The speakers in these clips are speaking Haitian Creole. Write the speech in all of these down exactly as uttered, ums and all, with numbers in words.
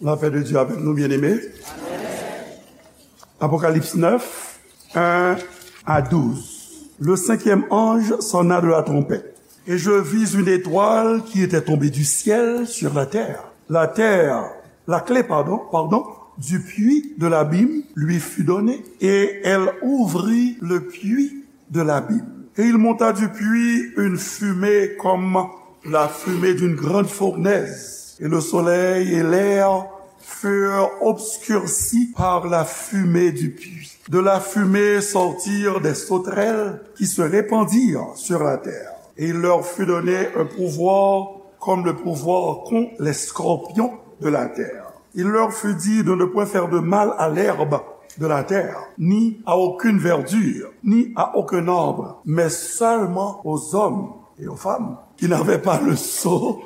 La paix de Dieu avec nous, bien-aimés. Apocalypse neuf, un à douze. Le cinquième ange sonna de la trompette, et je vis une étoile qui était tombée du ciel sur la terre. La terre, la clé, pardon, pardon, du puits de l'abîme lui fut donnée, et elle ouvrit le puits de l'abîme. Et il monta du puits une fumée comme la fumée d'une grande fournaise, et le soleil et l'air furent obscurcis par la fumée du puits. De la fumée sortirent des sauterelles qui se répandirent sur la terre. Et il leur fut donné un pouvoir comme le pouvoir qu'ont les scorpions de la terre. Il leur fut dit de ne point faire de mal à l'herbe de la terre, ni à aucune verdure, ni à aucun arbre, mais seulement aux hommes et aux femmes qui n'avaient pas le sceau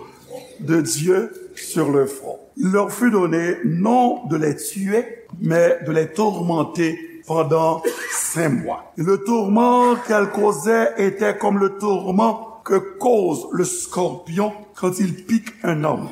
de Dieu sur le front. Il leur fut donné non de les tuer, mais de les tourmenter pendant cinq mois. Et le tourment qu'elle causait était comme le tourment que cause le scorpion quand il pique un homme.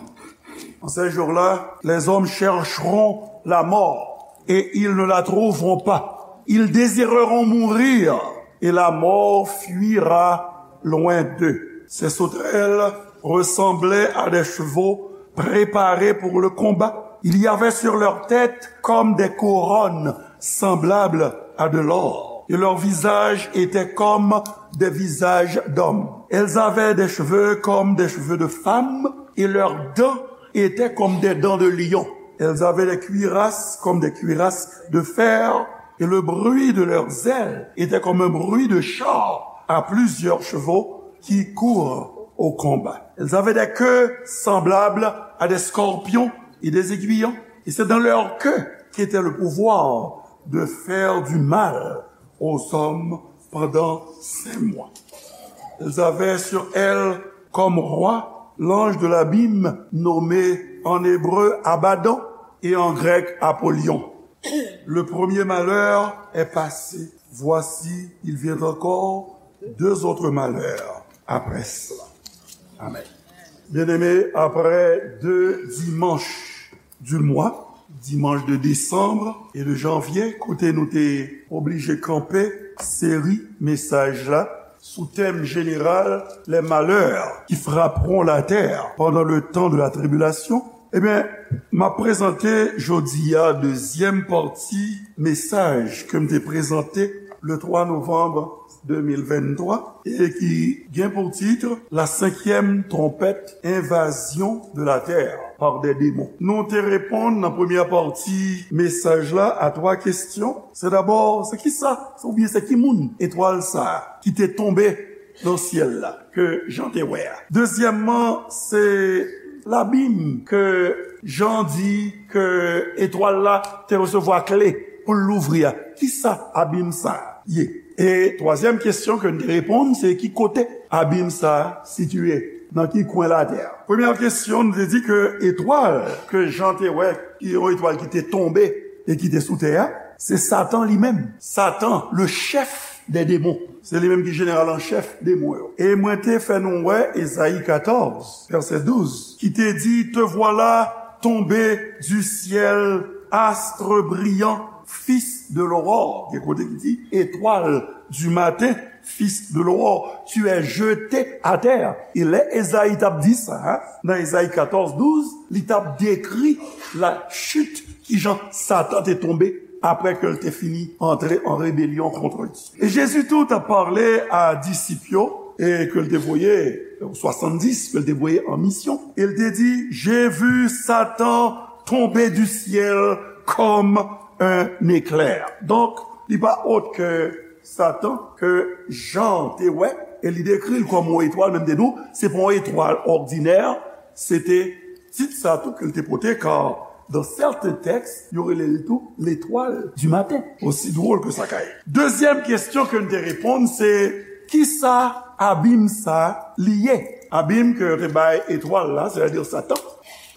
En ces jours-là, les hommes chercheront la mort et ils ne la trouveront pas. Ils désireront mourir et la mort fuira loin d'eux. Ces sauterelles ressemblaient à des chevaux préparés pour le combat. Il y avait sur leur tête comme des couronnes semblables à de l'or, et leurs visages étaient comme des visages d'hommes. Elles avaient des cheveux comme des cheveux de femmes, et leurs dents étaient comme des dents de lion. Elles avaient des cuirasses comme des cuirasses de fer, et le bruit de leurs ailes était comme un bruit de chars à plusieurs chevaux qui courent au combat. Elles avaient des queues semblables à des scorpions et des aiguillons, et c'est dans leur queue qu'était le pouvoir de faire du mal aux hommes pendant cinq mois. Elles avaient sur elles comme roi l'ange de l'abîme nommé en hébreu Abaddon et en grec Apollyon. Le premier malheur est passé. Voici, il vient encore deux autres malheurs après cela. Amen. Bien-aimés, après deux dimanches du mois, dimanche de décembre et de janvier, kote nou te oblije kanpe seri mesaj la sou tèm jeneral, les malheurs qui frapperont la terre pendant le temps de la tribulation, ebyen, m ap prezante jodi a dezyèm pati mesaj ke m te prezante le twa novanm de mil venntwa e ki gen pou tit La cinquième trompette, invasion de la terre par des démons. Nou te reponn nan premyè pati mesaj la a twa kesyon. Se dabò, se ki sa, oubyen se ki moun etwal sa a ki te tonbe nan syèl la, ke Jan te wè a. Dezyèmman, se labim ke Jan di ke etwal la te resevwa kle pou l louvri a. Ki sa abim sa a ye? E twazyèm kesyon ke n te reponn, se ki kote abim sa a sitiye, nan ki kwen latè a? Premyè kesyon, n te di ke etwal ke Jan te wè, ki yon etwal ki te tonbe e ki te sou tè a, se Satan li menm. Satan, le chèf dè demon. Se li menm ki jeneral an chèf demon yo. E mwen te fè nou wè Ezayi katòz, vèsè douz, ki te di, Te voilà tombé du ciel, astre brillant, fils de l'aurore. Gen kote ki di, étoile du matin, fils de l'aurore, tu es jeté à terre. E lè Ezayi t ap di sa, nan Ezayi katòz douz, li t ap dekri la chit, kijan Satan te tonbe apre ke l te fini antre an rebelyon kont Dye. E Jezi tou t ap pale a disip yo, e ke l te voye, swasanndis ke l te voye an misyon, e l te di, J'ai vu Satan tomber du ciel comme un éclair. Donk, li pa ot ke Satan, ke Jan te wè, e li dekri l kòm yon etwal, menm de nou, se pa yon etwal òdinè, se te tit sa tou ke l te pote, car dans certains textes, yo rele l tou l'étoile du matin. Osi dwòl ke sa ka ye. Dezyèm kesyon ke n te reponn, se, ki sa abim sa li ye? Abim ke yo te bay etwal la, sètadi Satan,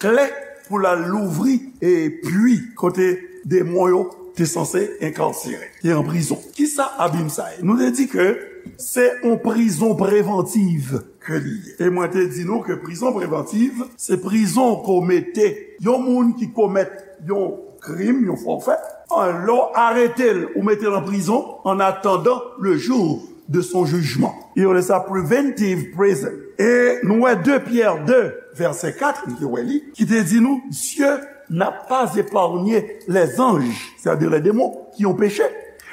kle pou l al louvri e pui kote demon yo te sanse enkarsere, te an prizon. Ki sa abim sa ye? Nou te di ke se yon prizon prevantiv ke li ye. E mwen te di nou ke prizon prevantiv, se prizon ke w mete yon moun ki komèt yon krim, yon fòfè, an, lè w arete l, ou mete l an prizon, en attendant le jour de son jugement. Yo rele sa preventive prison. E nou wè de Pyè de, vèsè kat, nou te wè li, ki te di nou, Dieu n'a pas épargné les anges, c'est-à-dire les démons, qui ont péché,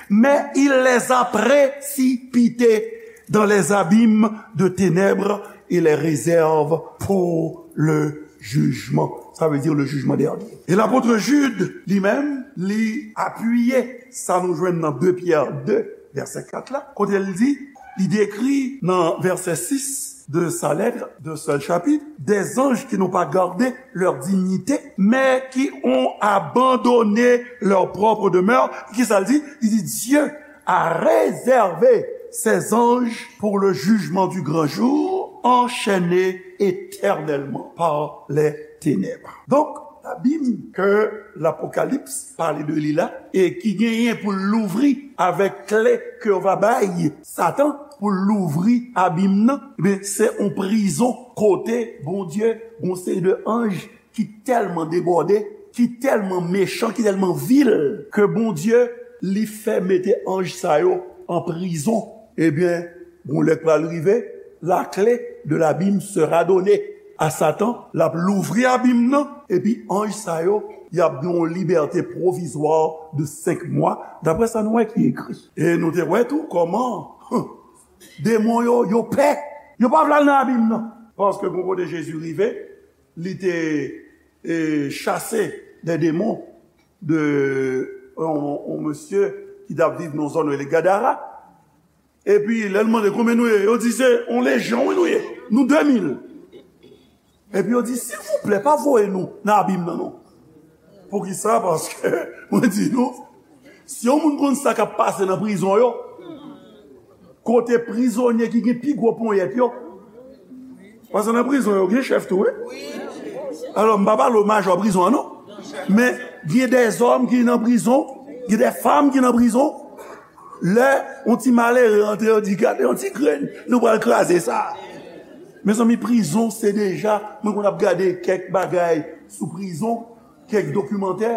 mais il les a précipités dans les abîmes de ténèbres et les réserve pour le jugement. Sa vle di le jugement dernier. E lapot Jid, li menm, li apiye sa nou jwenn nan de Pyè de, vèsè kat la, kote l di, li dekri nan vèsè sis de sa lettre, d'un seul chapitre, des anges qui n'ont pas gardé leur dignité, mais qui ont abandonné leur propre demeure. Kisa l di? Li di, Dieu a réservé ses anges pour le jugement du grand jour, enchaînés éternellement par les ténèbres. Donk, labim ke Lapokalips pale de li la, e ki genyen pou l louvri avèk kle ke yo va bay Satan pou l louvri abim nan, ebyen, se yon prizon kote Bondye, yon seri de anj ki tèlman debòde, ki tèlman mechan, ki tèlman vil, ke Bondye, li fè mete anj sa yo an prizon. Ebyen, gon lè k pral rive, la clé de l'abîme sera donnée à Satan, l ap louvri abim nan, epi anj sa yo, y ap gen yon libète pwovizwa de senk mwa, daprè sa nou wè ki ekri. E nou te wè tou kòman, demon yo, yo pè. Yo pa vle al nan abim nan. Paske gon kote Jezi rive, li te, e, chase de demon de yon, yon mesye ki t ap viv nan zòn rele Gadara. Epi, lè l mande konbyen nou ye, yo di se yon lejyon, wi, nou ye. Nou de mil. Epi yo di, silvouplè, pa voye nou nan abim nan, non. Poukisa? Paske, mwen di nou, si yon moun konn sa k ap pase nan prizon yo, kote prizonye ki gen pi gwo ponyèt yo, paske nan prizon yo gen chèf tou, wi. Alò, m pa pale w majò prizon an, non. Men, gen dèzòm ki nan prizon, gen dèfanm ki nan prizon. Lè yon ti malere antre, yo di, gade yon ti grenn, nou pral kraze sa. Mezanmi, prizon, se deja, mwen konn ap gade kèk bagay sou prizon, kèk dokimantè.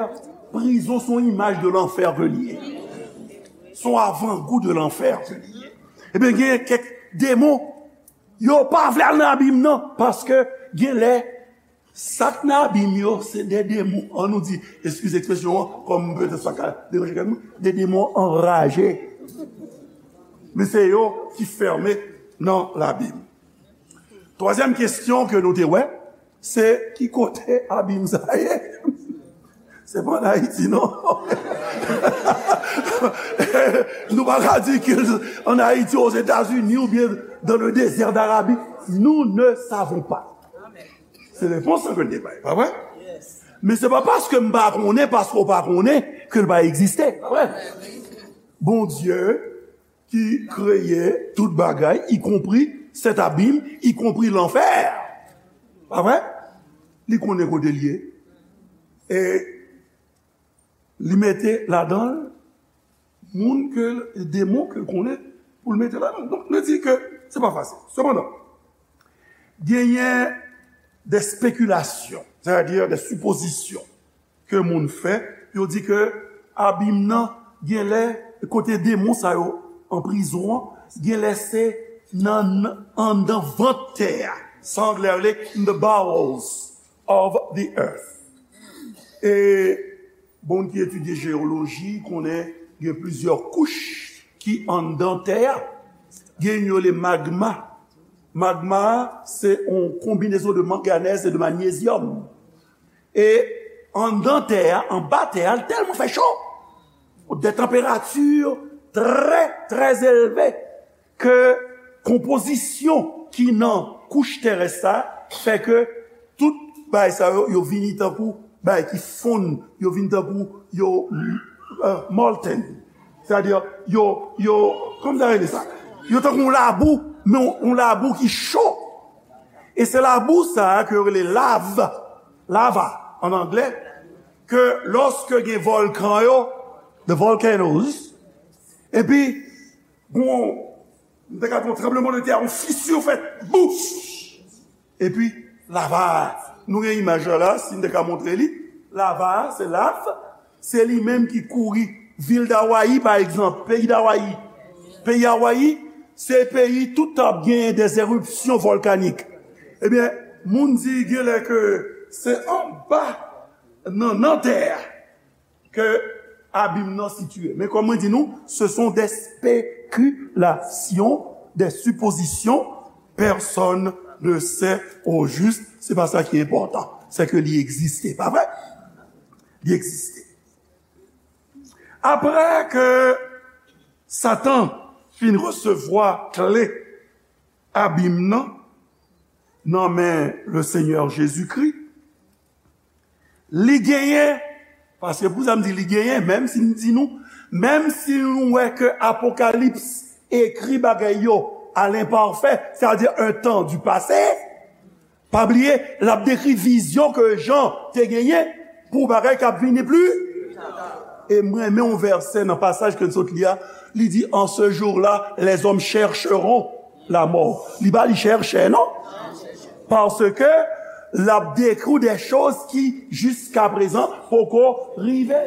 Prizon, se yon imaj de lanfè ke li ye. Se yon avangou de lanfè ke li ye. Ebyen, gen kèk demon, yo pa vle al nan abim nan, paske gen lè, sa k nan abim yo, se de demon, an nou di, eskize ekspresyon an, kòm petèt sa ka deranje kèk moun, de demon anraje. Men se yo ki fèmen nan labim. Twazyèm kesyon ke nou te wè, se ki kote abim sa ye? Se pa an Ayiti, non. Nou pa ka di ke an Ayiti, Ozetazini oubyen dans le désert d'Arabie. Nous ne savons pas. Se repons lan ke l te bay, pa vre? Men se pa paske m pa konnen, paske w pa konnen, ke l pa egziste, pa vre? Bondye ki kreye tout bagay, ikonpri cet abîme, ikonpri lanfè. Pa vre? Li konnen kote l ye. E li mete ladan l moun ke l, demon ke l konnen pou l mete ladan l. Donk, nou di ke se pa fasil. Sepandan, genyen de spekilasyon, sètadi de sipozisyon ke moun fè, yo di ke abim nan, genlè, kote demon sa yo an prizon an, genlè se nan, anndan vant tè a. Sa anglè rele in the bowels of the earth. E moun ki etidye jeyoloji konnen gen plizyè kouch ki anndan tè a. Gen yo rele magma. Magma, se yon konbinezon de manganèz e de manyezyòm. E anndan tè a, anba tè a, l tèlman fè cho, de tanperati trè, trè elve, ke konpozisyon ki nan kouch terès sa fè ke tout bagay sa yo, yo vini tankou bagay ki fonn, yo vin tankou yo, euh, molten. Sètadi, yo, yo, kòman sa rele sa? Yo tankou yon labou, men yon, yon labou ki cho. E se labou sa a ke yo rele lav, lava, an anglè, ke lòske gen vòlkan yo, the volcanoes, epi gon M te ka di yon tranblemanntè, yon fisi fèt, bouf! Epi, lava a, nou gen imaj la la, si m te ka montre li, lava a, se lav, se li menm ki kouri vil Dawayi, pa egzanp, peyi Dawayi. Peyi Hawaii, se peyi tout tan ap genyen des éruptions volcaniques. Ebyen, moun di genlè ke se anba nan, nan tè a ke abim nan sitiye. Men kòm mwen di nou, ce sont des spéculations, des suppositions, personne ne sait au juste, se pa sa ki enpòtan, se ke li egziste, pa vre? Li egziste. Apre ke Satan fin resevwa kle abim nan, nan men le Senyè Jezikri, li genyen, paske pou sa m di li genyen, menm si m di nou, menm si nou wè ke Apokalips ekri bagay yo à l'imparfait, c'est-à-dire un temps du passé, pa bliye, l ap dekri vizyon ke Jan te genyen pou bagay k ap vini pli. E m renmen yon vèsè nan pasaj ke n sot li a, li di, en ce jour-là, les hommes chercheront la mort. Li pa li chèchè, non? Paske l ap dekri w de choz ki jiskaprezan poko rive.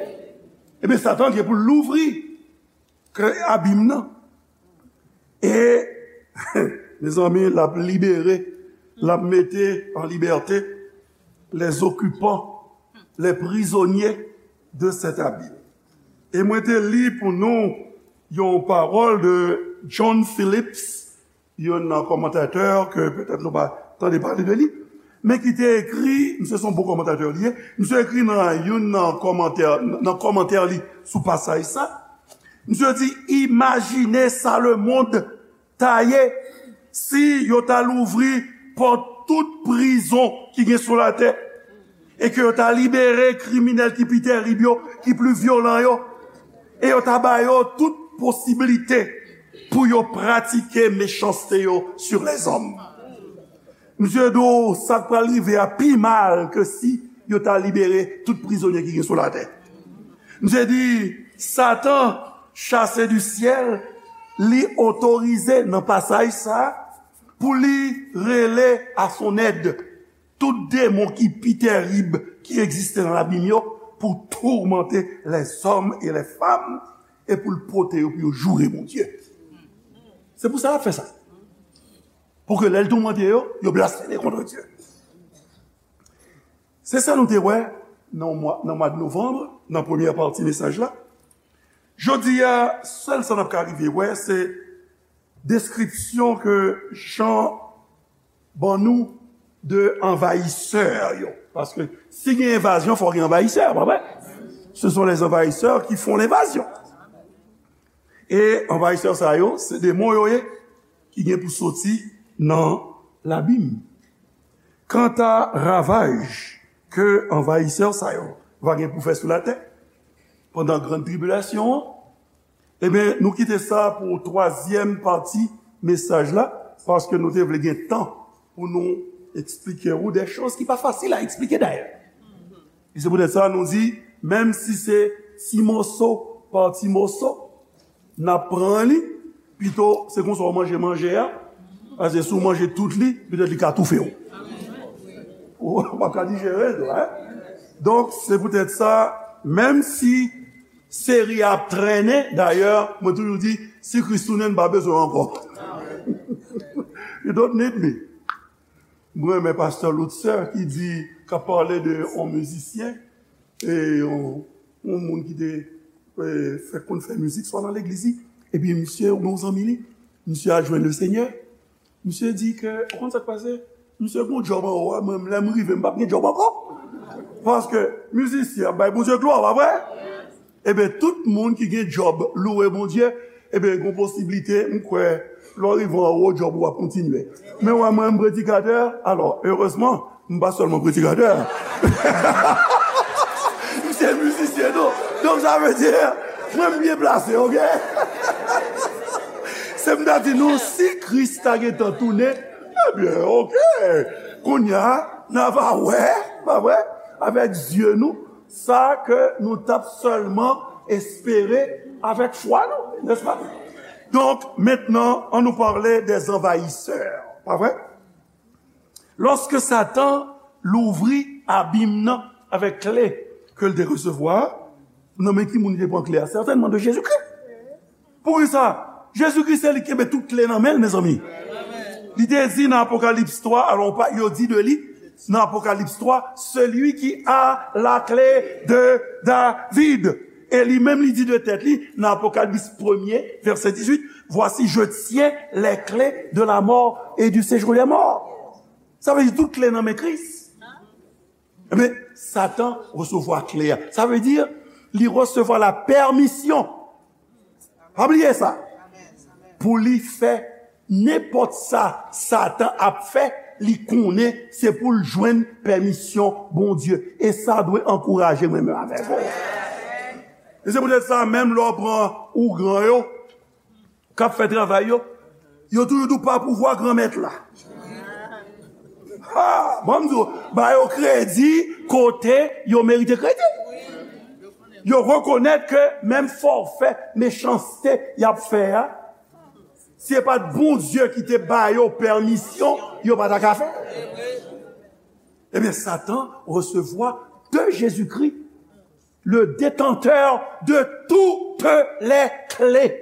Ebyen, Satan gen pou l louvri kle abim nan. E, mezanmi, l ap libere, l ap mete an libète les occupants, les prisonniers de cet abîme. E mwen te li pou nou yon pawòl de John Phillips, youn nan kòmantatè ke petèt nou pa tande pale de li, men ki te ekri, misye se yon bon kòmantatè li ye, misye ekri nan youn nan kòmantè, nan kòmantè li sou pasaj sa, misye di, imajine sa lemonn ta ye si yo ta louvri pòt tout prizon ki gen sou latè e ke yo ta libere kriminèl ki pi tèrib yo, ki pli vyolan yo, e yo ta ba yo tout posiblite pou yo pratike mechanste yo sur les hommes. Misye di w sa k pral rive a pi mal ke si yo ta libere tout prizonye ki gen sou latè. Misye di, Satan, chassé du ciel, li otorize nan pasaj sa a pou li rele à son aide tout demon ki pi tèrib ki egziste nan labim yo pou toumante les hommes et les femmes e pou l pote yo pou yo joure Bondye. Se pou sa l ap fè sa. Pou ke lè l toumante yo, yo blasfeme kont Dye. Se sa nou te wè nan mwa, nan mwa de novanm, nan premyè pati mesaj la. Jodi a, sèl sa n ap ka rive wè, se deskripsyon ke Jan ban nou de anvayisè yo. Paske si gen envazyon, fò gen anvayisè, pa vre? Ce sont les envahisseurs qui font l'invasion. E anvayisè sa yo, se demon yo ye, ki gen pou soti nan labim. Kanta ravaj ke anvayisè sa yo va gen pou fè sou latè pandan grann tribilasyon an, ebyen, nou kite sa pou twazyèm pati mesaj la, paske nou te vle gen tan pou nou eksplike ou de choz ki pa fasil a eksplike dayè. E se poutèt sa nou di, menm si se ti moso pa ti moso, n ap pran li, pito se konsa w manje manje a, paske si w manje tout li, petèt li ka toufe w. Ou p ap ka dijere l tou, en? Donk, se poutèt sa, menm si seri a ap trennen, dayè, mwen toujou di, si Kris tounen, n pa bezwen w ankò. You don't need me. Mwen renmen pastè Luther ki di, k ap pale de yon mizisyen, e yon, yon moun ki te, e, fèk konn fè mizik, swa nan legliz li, epi misye, yon zanmi li, misye al jwenn Lesenyè, misye di ke, ou konn sa k pase? Misye gon djòb anwo a, mwen, lè m rive, m p ap gen djòb ankò. Paske mizisyen ap bay Bondye glwa, pa vre? Ebyen, tout moun ki gen djòb louwe Bondye, ebyen, gon posiblite, m kwè, lè w rive anwo, djòb ou ap kontinye. Men w wè mwen, m predikatè, alò, erezman, m pa sèlman predikatè. M se mizisyen tou. Donk, sa vle di, mwen, m byen plase, oke? Se m ta di nou, si Kris ta gentan tounen, ebyen, oke. Kounye a, n a va wè, pa vre? Avèk zye nou, sa ke nou t ap sèlman espere avèk fwa nou, nèspa? Donc, maintenant, on nous parle des envahisseurs. Pa vre? Lòske Satan louvri abim nan avèk kle ke l te resevwa, nan men ki moun li te pran kle a? Sètènman de Jezikri. Poukisa? Jezikri se li ki kenbe tout kle nan men l, mezanmi. Li te di nan Apokalips twa, alò, pa, yo di de li, nan Apokalips twa, celui qui a la clé de David. E li menm, li di de tèt li, nan Apokalips premye, vèsè dizuit, voici, je tiens les clés de la mort et du séjour des morts. Sa vle di tout kle nan men Kris. Ebyen, Satan resevwa kle a. Sa vle di, li resevwa la pèmisyon. Pa bliye sa. Pou li fè nenpòt sa Satan ap fè, li konnen se pou l jwenn pèmisyon Bondye. E sa dwe ankouraje mwen menm avèk ou. E se poutèt sa, menm lè w pran ougan yo, k ap fè travay yo, yo toujou di w pa pouvwa Granmèt la. Ha! Bon, m di w, ba yo kredi kote yo merite kredi. Yo rekonèt ke menm fòfè mechanste y ap fè a, si se pa t Bondye ki te ba yo pèmisyon, yo pa ta ka fè. Ebyen, Satan resevwa de Jezikri, le détenteur de toutes les clés.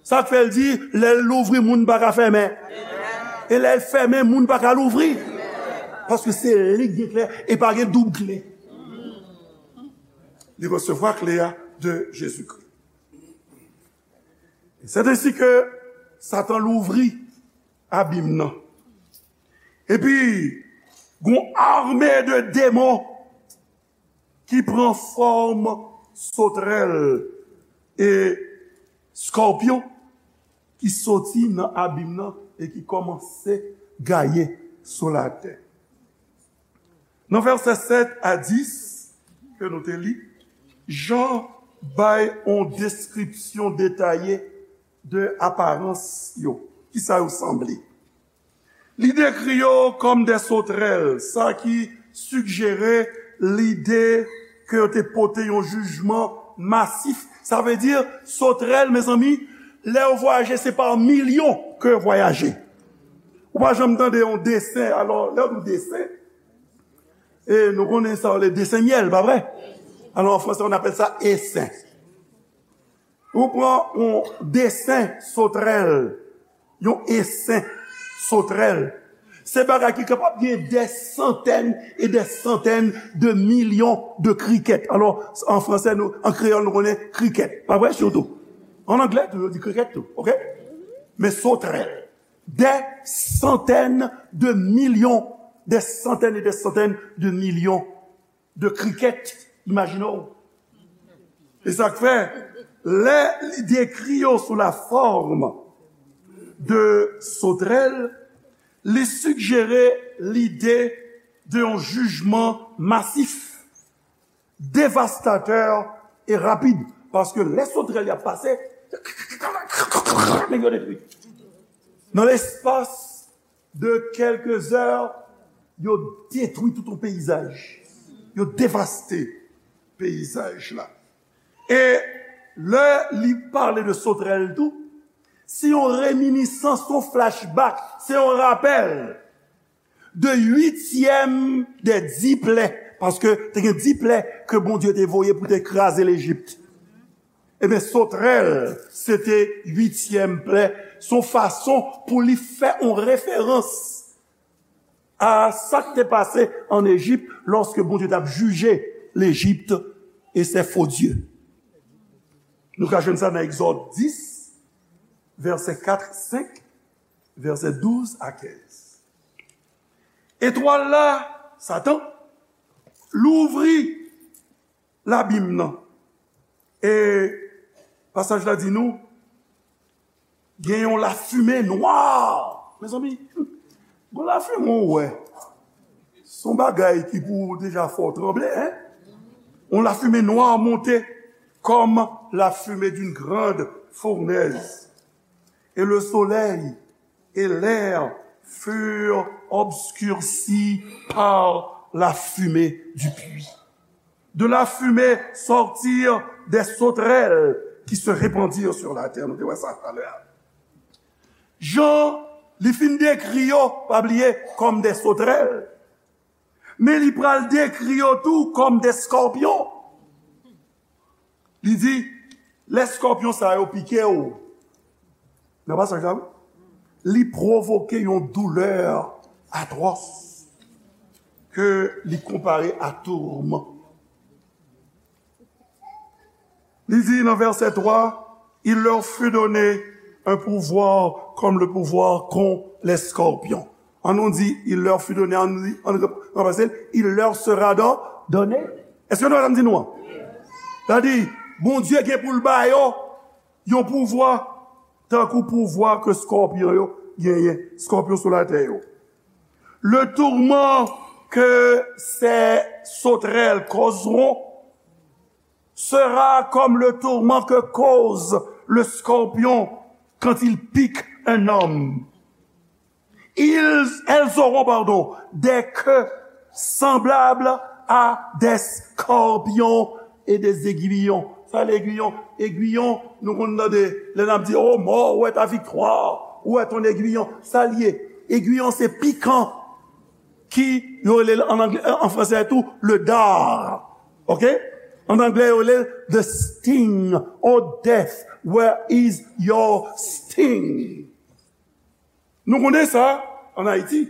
Sa k fè l di, lè l louvri, moun pa ka fèmen. E lè l fèmen, moun pa ka louvri. Paske se li k gen kle, e pa gen doub kle. Li resevwa kle a de Jezikri. C'est ainsi que Satan louvri abim nan. Epi, gon ame de demon ki pran fòm sotrèl e skòpyon ki soti nan abim nan e ki kòmanse gaye sou latè. Nan vèsè sèt a dis ke nou te li, Jan bay yon deskripsyon detaye de aparans yo, kisa yo sanble. Li dekri yo kòm de sotrèl, sa ki sigjere lide ke yo te pote yon jijman masif. Sa vle di, sotrèl, mezanmi, lè yo vwayaje, se pa milyon ke yo vwayaje. Ou pa janm tande yon desen, alò, lè yo di desen, e nou konnen sa, le desen myèl, pa vre? Alò, an fransè, on appelle ça essaim. Ou pran yon desen sotrèl, yon esen sotrèl. Se bagay ki kapab gen des centaines et des centaines de millions de criquets. Alò, an fransè, nou, an kreyòl, nou konnen krikèt. Pa vre, sitou. An anglè, tou, yo di krikèt, tou, oke? Men sotrèl. Des centaines de millions, des centaines et des centaines de millions de criquets, imajine w. E sa k fè, lè li dekri yo sou la forme de sotrèl, li sigjere lide de yon jijman masif, devastatè e rapid. Paske lè sotrèl y ap pase, nèg yo detwi. Nan lespas de kèlke zè, yo detwi tout yon peyizaj. Yo devaste peyizaj la. E lè li pale de sotrèl tou, se yon reminisans, se yon flashback, se yon rapèl de uityèm dè di plè, paske te gen di plè ke Bondye te voye pou te kraze Lejip. Ebyen, sotrèl, se te uityèm plè. Se yon fason pou li fè yon referans a sa k te pase ann Ejip lòske Bondye t ap jije Lejip e ses faux dieux. Nou ka jwenn sa nan Egzòd dis, vèsè kat, senk, vèsè douz a kenz. Etwal la, Satan, louvri labim nan. E pasaj la di nou, gen yon lafimen nwa. Mezanmi, yon lafimen ou wè, se yon bagay ki pou deja fè w tranble, en? Yon lafimen nwa monte comme la fumée d'une grande fournaise. Et le soleil et l'air furent obscurcis par la fumée du puits. De la fumée sortirent des sauterelles qui se répandirent sur la terre. Nou te wè sa talè a. Jan li fin dekri yo, pa bliye, kòm de sotrèl, men li pral dekri yo tou kòm de skòpyon. Li di, lè skòpyon sa yo pike w, nan pasaj la, wi, li pwovoke yon doulè atwòs ke li konpare a tourman. Li di nan vèsè twa, il leur fut donné un pouvoir comme le pouvoir qu'ont les scorpions. An nou di, il leur fut donné, an nou di, an nou ranplase l, il leur sera don-, donné. Èske nou wè sa m di nou an? Sa di, Bondye gen pou l ba yo yon pouvwa, tankou pouvwa ke skòpyon yo genyen, skòpyon sou latè yo. Le tourment que ces sauterelles causeront sera comme le tourment que cause le scorpion quand il pique un homme. Ils, elles auront, pardon, des queues semblables à des scorpions et des aiguillons. Sa, egwiyon, egwiyon, nou konn tande lè n ap di, "Oh, mort, où est ta victoire? Où est ton aiguillon?" Sa l ye. Egwiyon se pikan ki yo rele l an anglè, an fransè tou, le dard. Ok? An anglè, yo rele l the sting. Oh, death, where is your sting? Nou konnen sa, an Ayiti,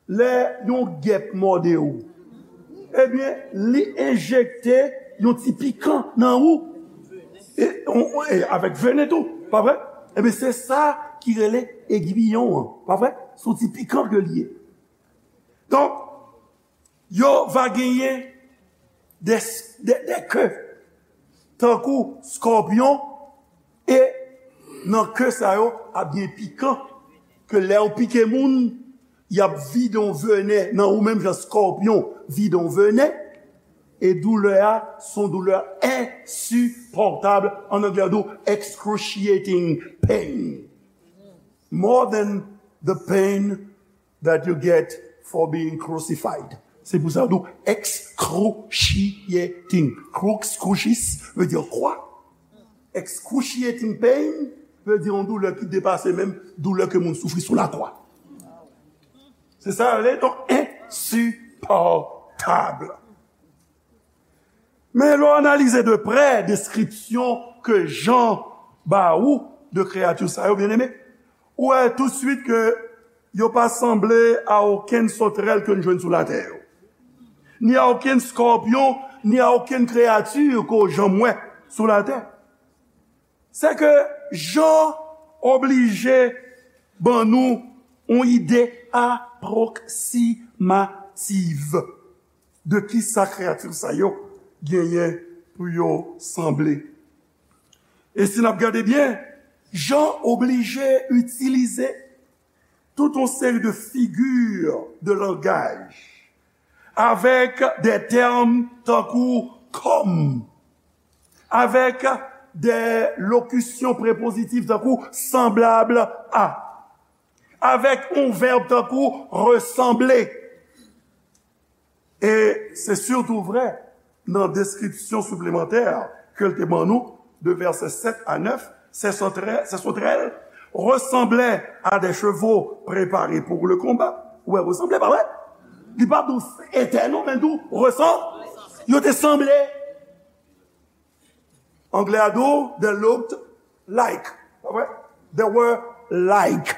lè yon gèp mòde w, ebyen, li enjekte yon ti pikan nan ou. E, on, on, e avèk venen tou, pa vre? Ebyen, se sa ki rele egwiyon an, pa vre? Se yon ti pikan ke li ye. Donk, yo va genyen de, de, de ke, tankou skòpyon, e nan ke sa yo ap gen pikan, ke lè yo pike moun, y ap vide yon venen nan ou menm jan skòpyon vide yon venen, e doulè a, se yon doulè ensipòtab, an anglè yo di w excruciating pain. More than the pain that you get for being crucified. Se pou sa yo di w excruciating. Crux, crucis, vle di kwa. Excruciating pain vle di yon doulè ki depase menm doulè ke moun soufri sou lakwa. Se sa yo rele, donk, ensipòtab. Men lè w analize de prè deskripsyon ke Jan ba ou de kreyati sa yo, byeneme, ou wè toutswit ke yo pa sanble a okenn sotrèl ke n jwenn sou latè yo, ni a okenn skòpyon, ni a okenn kreyati ke w janm wè sou latè. Se ke Jan oblije ban nou yon ide apwoksimativ de kisa kreyati sa yo genyen pou yo sanble. E si n ap gade byen, Jan oblije itilize tout yon seri de figi de langaj avèk de tèm tankou kòm, avèk de lokisyon prepozitif tankou sanblab a, avèk yon vèb tankou resanble. E se sitou vre nan deskripsyon siplemantè ke l te ban nou, de vèsè sèt a nèf, ces sauterelles, ces sauterelles ressemblaient à des chevaux préparés pour le combat. Ou wè, resanble, pa vre? Li pa di w etè non, men di w resan-, yo te sanble. Anglè a di w, they looked like. Pa vre? They were like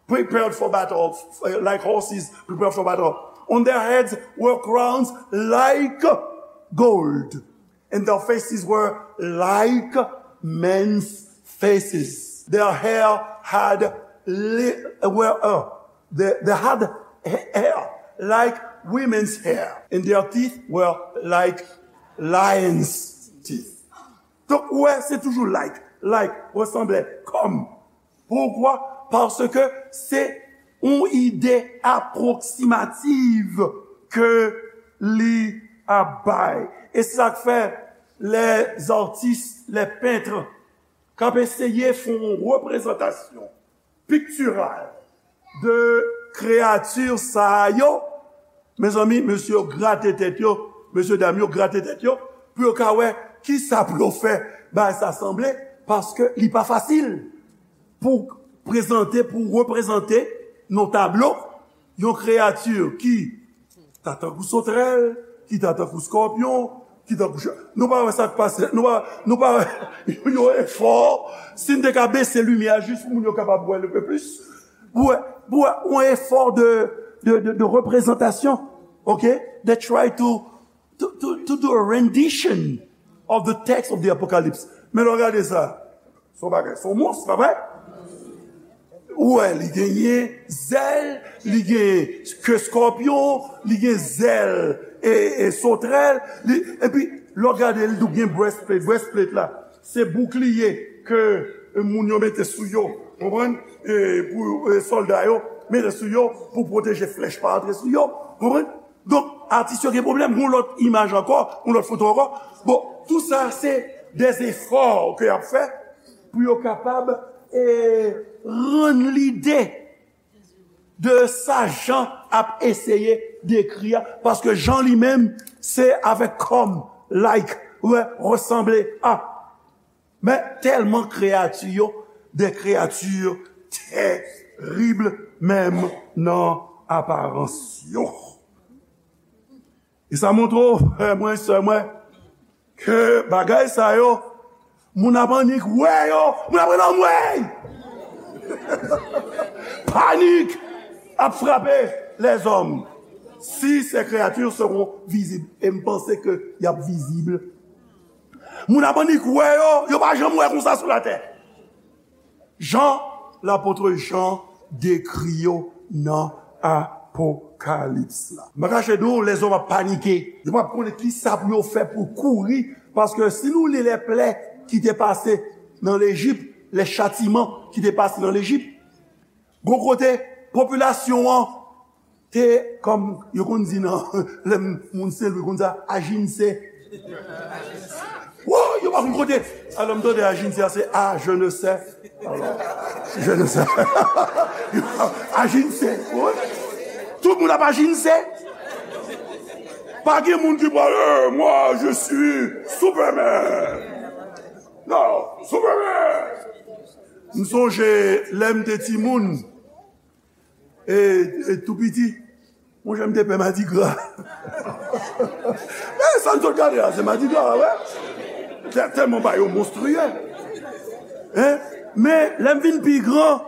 prepared for battle, uh, like horses prepared for battle. On their heads were crowns like gold, and their faces were like men's faces. Their hair had li-, were, uh, they, they had ha-, hair like women's hair, and their teeth were like lions' teeth. Donk, ou wè, se toujou like, like, resanble, kòm. Poukwa? Paske se yon ide apwoksimativ ke li ap bay. E se sa k fè lèzartis, lèpent, k ap eseye fè yon reprezantasyon piktiral de kreyati sa yo, mezanmi, mesye yo grate tèt yo, mesye dam yo grate tèt yo, pou yo ka wè Kisa pou yo fè bagay sa sanble? Paske li pa fasil pou prezante, pou reprezante nan tablo yon kreyati ki ta tankou sotrèl, ki ta tankou skòpyon, ki tankou ch-, nou pa wè sa k pase, nou pa, nou pa wè yon efò, si n te ka bese limyè a jis pou moun yo kapab wè l un peu plus, pou wè, pou wè yon efò de, de, de, de reprezantasyon, ok? They try to, to, to, to do a rendition of the text of the Apocalypse. Men lè w gade sa, se yon bagay, se yon mons, pa vre? Ou wè, li genyen zèl, li genyen ke skòpyon, li gen zèl e, e sotrèl, li, epi lè w gade, li tou gen breastplate. Breastplate la, se boukliye ke moun yo mete sou yo, konprann? E pou, e, sòlda yo mete sou yo pou pwoteje flèch pa antre sou yo, konprann? Donk, atis yo gen pwoblèm. Yon lòt imaj ankò, yon lòt foto ankò. Bon, tou sa, se des efò ke y ap fè pou yo kapab, e, rann lide de sa Jan ap eseye dekri a. Paske Jan li menm, se avèk kòm, like, wè, resanble a. Men tèlman kreyati yo, de kreyati terib menm nan aparans yo. E sa montre w, frè mwen, sè mwen, ke bagay sa yo, moun ap annik wè yo, moun ap rele anmwey! Panik ap frape lèzòm. Si ces créatures seront visibles, e m panse ke y ap vizib. Moun ap annik wè yo, yo pa janm wè konsa sou latè. Jan, lapot Jan dekri yo nan Apokalips la. M pa kache di w, lèzòm ap panike. Yo p ap konnen kisa pou yo fè pou kouri, paske si nou li lè plè ki te pase nan Lejip, lè chatiman ki te pase nan Lejip, gon kote popilasyon an te, kòm yo konn di nan, lè moun Sen Lwi konn di sa, ajinse. Wo, yo pa konn kote. Alò, m tande ajinse a, se a, je ne sais. Alò, je ne sais. Ajinse. Wi. Tout moun ap ajinse. Pa gen moun ki pral, eh, moi, je suis Superman. Non, Superman. M sonje lè m te timoun, e, e tou piti, monchè, m te pè madigra. Men sa n sot gade la, se madigra, wè. Tè-, tèlman bagay yo monstriye. Hein? Men lè m vin pi gran,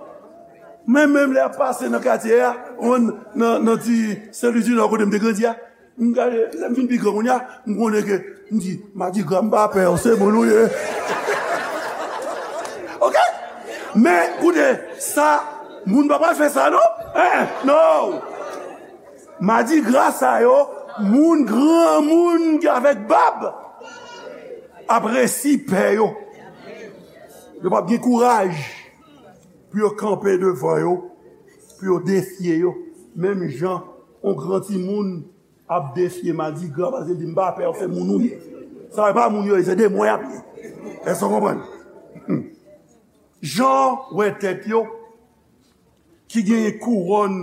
men menm lè y ap pase nan katye a, nan, nan, nan ti Sen Lwi di Nò kote m te grandi a, m gade, lè m vin pi gran kounye a, m konnen ke, m di, madigra, m pa pè w, se moun ou ye. Ok? Men, koute, sa, moun pa pral fè sa, non? Hein, non! Madigra sa yo, moun, granmoun ki avèk bab ap resi pè yo. Yo p ap gen kouraj pou yo kanpe devan yo, pou yo defye yo. Menm jan yon gran timoun ap defye madigra, paske l di, "M pa pè w, se moun ou ye." Sa yo pa moun yo ye, se demon y ap ye. Èske w konprann? Hmm. Jan wè tèt yo ki genyen kouwòn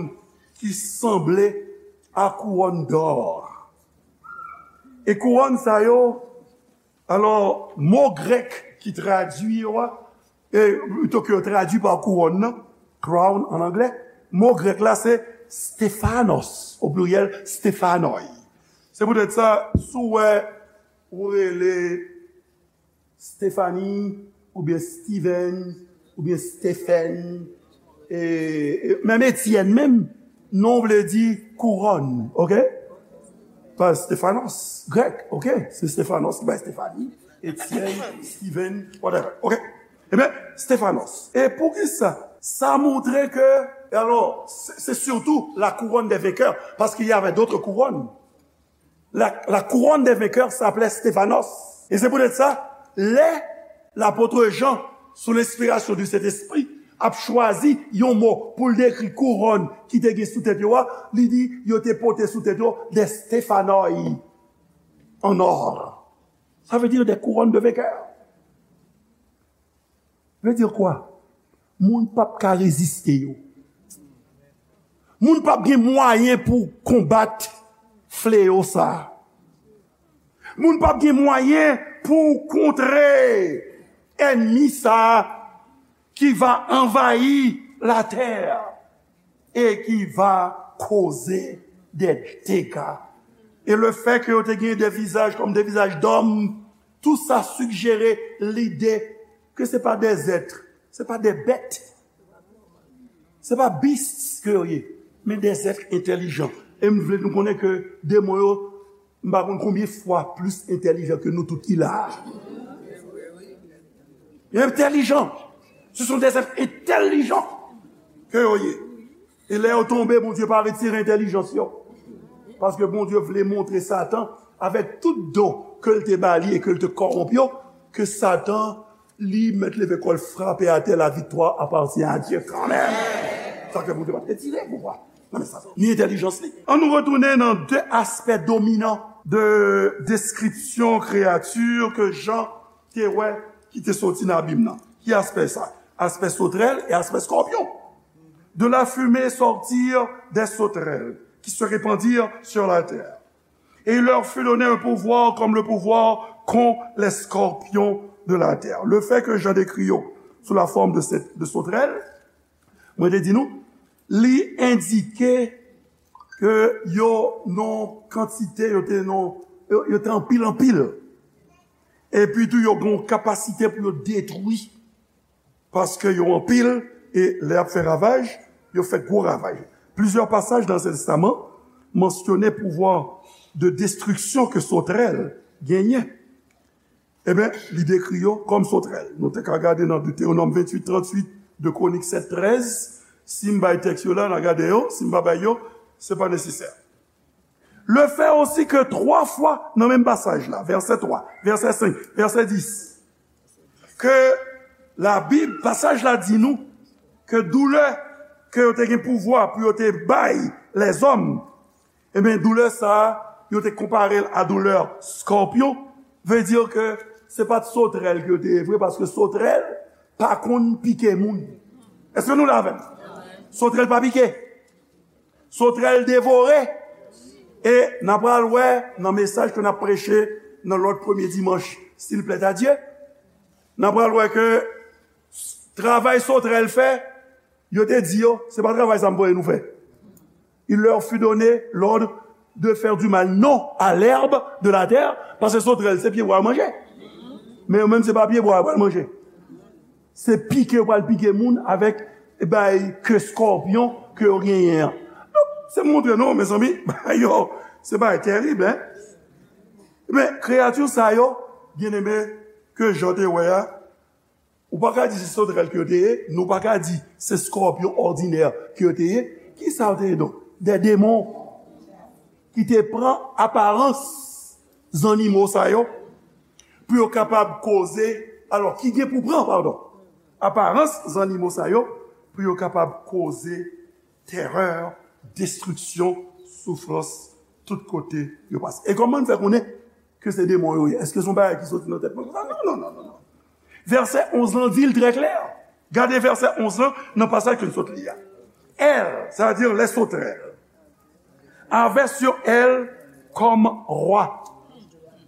ki sanble a kouwòn dò. E kouwòn sa yo, alò, mo grèk ki tradui yo a, e, pito ke yo tradui pa kouwòn nan, crown an anglè, mo grèk la se stephanos, o pliryèl, stephanoi. Se poutèt sa, si w wè ou rele Stephanie, oubyen Steven, oubyen Stephen, e, e, menm Etienne menm, non vle di kouwòn, ok? Pa Stephanos, grèk, ok? Se Stephanos ki bay Stephanie, Etienne, Steven, whatever, ok? Ebyen, Stephanos. E poukisa? Sa montre ke, e alò, se, se surtout la couronne des vainqueurs, parce qu'il y avait d'autres couronnes. La, la couronne des vainqueurs s'appelait Stéphanos. E se poutèt sa, lè lapot Jan, sou lenspirasyon di Sentespri, ap chwazi yon mo pou l dekri kouwòn ki te gen sou tèt yo a, li di yo te pote sou tèt yo des stéphanoi en or. Ça veut dire des couronnes de vainqueurs. Veut dire quoi? Moun p ap ka reziste yo. Moun p ap gen mwayen pou konbat fleyo sa a. Moun p ap gen mwayen pou w kontre ènmi sa a ki va anvayi latè e ki va koze de dega. E le fè ke yo te gen de vizaj kòm de vizaj dòm, tou sa sijere lide ke se pa de zèt, se pa de bèt, se pa bis ke yo ye, men de zèt entèlijan. E m vle nou konnen ke demon yo, m pa konn konbyen fwa plis entèlijan ke nou tout ki la a. Yo entèlijan. Ce sont des êtres intelligents ke yo ye. E lè yo tonbe, Bondye pa retire entèlijans yo. Paske Bondye vle montre Satan, avèk tout don ke l te ba li e ke l te kòwonp yo, ke Satan, li mèt leve kò l frape atè, la viktwa apatyen a Dye kanmenm. Sa fè Bondye pa t retire pouvwa nan men Satan, ni entèlijans li. Ann nou retounen nan de aspè dominan de deskripsyon kreyati ke Jan te wè ki te soti nan abim nan. Ki aspè sa? Aspè sotrèl e aspè skòpyon. De la fumée sortirent des sauterelles qui se répandirent sur la terre. Et il leur fut donné un pouvoir comme le pouvoir qu'ont les scorpions de la terre. Le fait que Jean décrit yo sous la forme de, cette, de sauterelles, mwen te di nou, li endike ke yo nan kantite, yo te nan, yo, yo te anpil, anpil. Epi tou, yo gen yon kapasite pou yo detwi. Paske yo anpil, e lè y ap fè ravaj, yo fè gwo ravaj. Plusieurs passages dans l'Ancien Testament mentionnaient pouvoir de destruction que sauterelles genyen. Ebyen, li dekri yo kòm sotrèl. Nou te ka gade nan Deutéronome vingt-huit trente-huit, deux Chroniques sept treize. Si m bay tèks yo la, n a gade yo. Si m pa bay yo, se pa nesesè. Le fait aussi que twa fwa nan menm pasaj la, vèsè twa, vèsè senk, vèsè dis, ke Labib, pasaj la di nou ke doulè ke yo te gen pouvwa pou yo te bay lèzòm, ebyen, doulè sa a, yo te konpare l a doulè skòpyon, vle di ke se pa t sotrèl ke yo te ye vre, paske sotrèl pa konn pike moun. Èske nou la avè m? Sotrèl pa pike. Sotrèl devore. E n a pral wè nan mesaj ke n ap preche nan lòt premye dimanch, si l plèt a Dye, n a pral wè ke travay sotrèl fè, yo te di yo, se pa travay sa m voye nou fè. Il leur fut donné l'ordre de faire du mal, non à l'herbe de la terre, paske sotrèl se pyebwa yo manje. Men yo menm se pa pyebwa yo pral manje. Se pike yo pral pike moun avèk bay ke skòpyon ke yo genyen an. Donk, se montre nou, mezanmi, bagay yo, se bagay terib, en. Men, kreyati sa yo, byeneme, ke Jan te wè a, ou pa ka di se sotrèl ke yo te ye, nou pa ka di se skòpyon òdinè ke yo te ye. Kisa yo te ye donk? De demon ki te pran aparans zannimo sa yo pou yo kapab koze, alò, ki gen pou pran, padon, aparans zannimo sa yo pou yo kapab koze terè, destriksyon, soufrans, tout kote yo pase. E kòman n fè konnen ke se demon yo ye? Èske se yon bagay ki soti nan tèt mwen konsa? Non, non, non, non, non. Vèsè onz lan di l trè klè. Gade vèsè onz lan nan pasaj ke n sot li a. Elles, c'est-à-dire les sauterelles, avaient sur elles comme roi